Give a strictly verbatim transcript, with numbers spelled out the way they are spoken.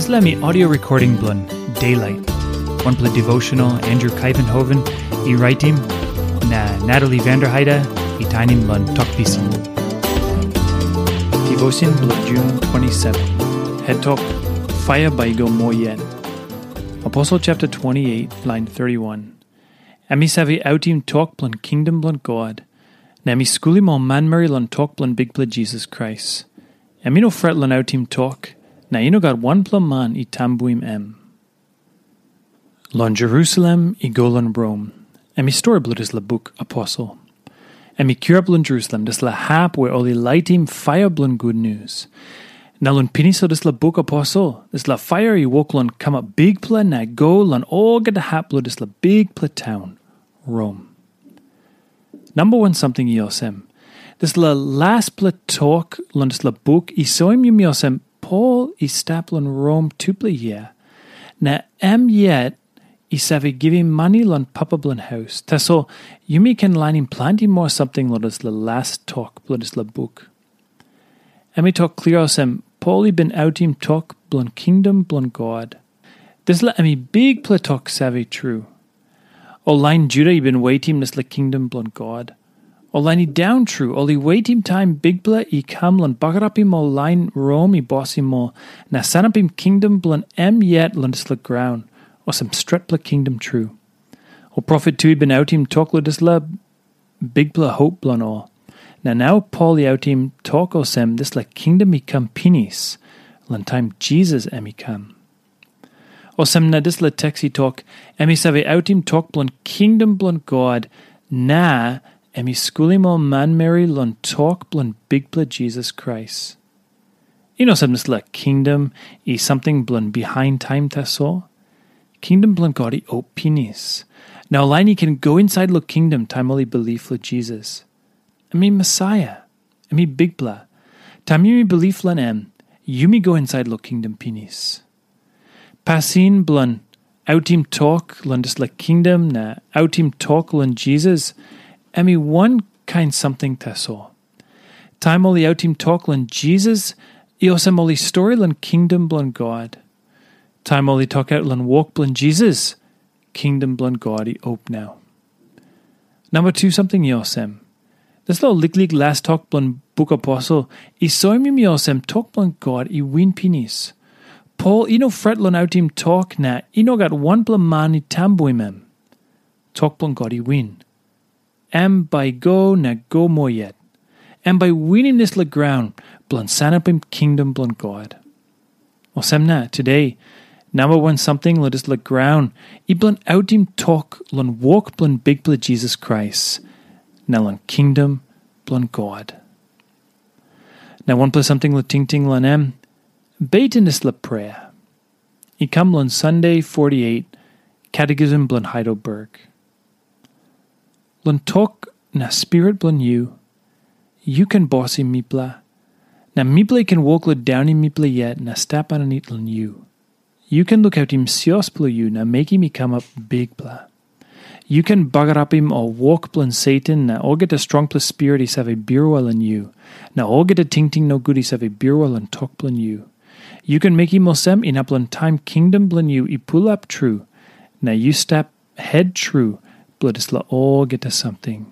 Dispela mi audio recording bilong Daylight, wanpela devotional Andrew Kaivenhoven i raitim, na Natalie Vanderheide i tainim long Tok Pisin. Devotion bilong Jun twenty-seven. Het tok, Paia bai i go moa yet. Aposel chapter twenty-eight, lain thirty-one. Em i save autim tok bilong kingdom bilong God, na em i skulim ol manmeri long tok bilong Bikpela Jisas Krais. Em i no fret long autim tok, na i no gat wanpela man i tambuim em. Long Jerusalem i go long Rom, em i stori bilong dispela buk Aposel. Em i kirap long Jerusalem, dispela hap where ol i laitim paia bilong gutnius. Na long pinis long dispela buk Aposel, dispela paia i wok long kamap bikpela na i go long olgeta hap bilong dispela bikpela taun, Rom. Namba wan samting i olsem, dispela laspela tok long dispela buk i soim yumi olsem Pol i stap long Rom tupela yia, na em yet i save givim mani long papa bilong haus. Tasol yumi ken lainim planti moa samting long dispela las tok bilong dispela buk. Em i tok klia olsem, Pol i bin autim tok bilong kingdom bilong God. Dispela em i bikpela tok save tru. Ol lain Juda i bin wetim dispela kingdom bilong God. Ol lain i daun tru, ol i wetim taim Bikpela i kam long bagarapim ol lain Rom i bosim ol, na sanapim kingdom bilong em yet long dispela graun, olsem stretpela kingdom tru. Ol profet tu i bin autim tok long dispela bikpela hop bilong ol. Na nau Pol i autim tok olsem dispela kingdom i kam pinis, long taim Jisas em i kam. Olsem na dispela teks i tok, em i save autim tok bilong kingdom bilong God, na em i skulim ol manmeri long tok bilong Bikpela Jisas Krais. I no olsem dispela kingdom i samting bilong bihain taim tasol. Kingdom bilong God i op pinis. Na ol lain i ken go insait long kingdom taim ol i bilip long Jisas. Em i Mesaia. Em i Bikpela. Taim yumi bilip long em, yumi go insait long kingdom pinis. Pasin bilong autim tok long dispela kingdom na autim tok long Jisas, em i wankain samting tasol. Taim ol i autim tok long Jisas, i olsem ol i stori long kingdom bilong God. Taim ol i tokaut long wok bilong Jisas, kingdom bilong God i op nau. Namba tu samting i olsem. Dispela liklik las tok bilong buk Aposel i soim yumi olsem tok bilong God i win pinis. Pol i no fret long autim tok na i no gat wanpela man i tambuim em. Tok bilong God i win. Em bai i go na go moa yet. Em bai i winim dispela graun bilong sanapim kingdom bilong God. Olsem na, today, namba wan samting long dispela graun i bilong autim tok long wok bilong Bikpela Jisas Krais, na long kingdom bilong God. Na wanpela samting long tingting long em, beten dispela prea. I kam long Sunday forty-eight, Catechism bilong Heidelberg. Long tok na spirit bilong yu, yu ken bosim mipela, na mipela i ken wok long daunim mipela yet na stap aninit long yu. Yu ken lukautim sios bilong yu na mekim i kamap bikpela. Yu ken bagarapim ol wok bilong Satan na olgeta strongpela spirit i save birua long yu, na olgeta tingting nogut i save birua long tok bilong yu. Yu ken mekim olsem inap long taim kingdom bilong yu i pulap tru, na yu stap het tru bilong dispela olgeta samting.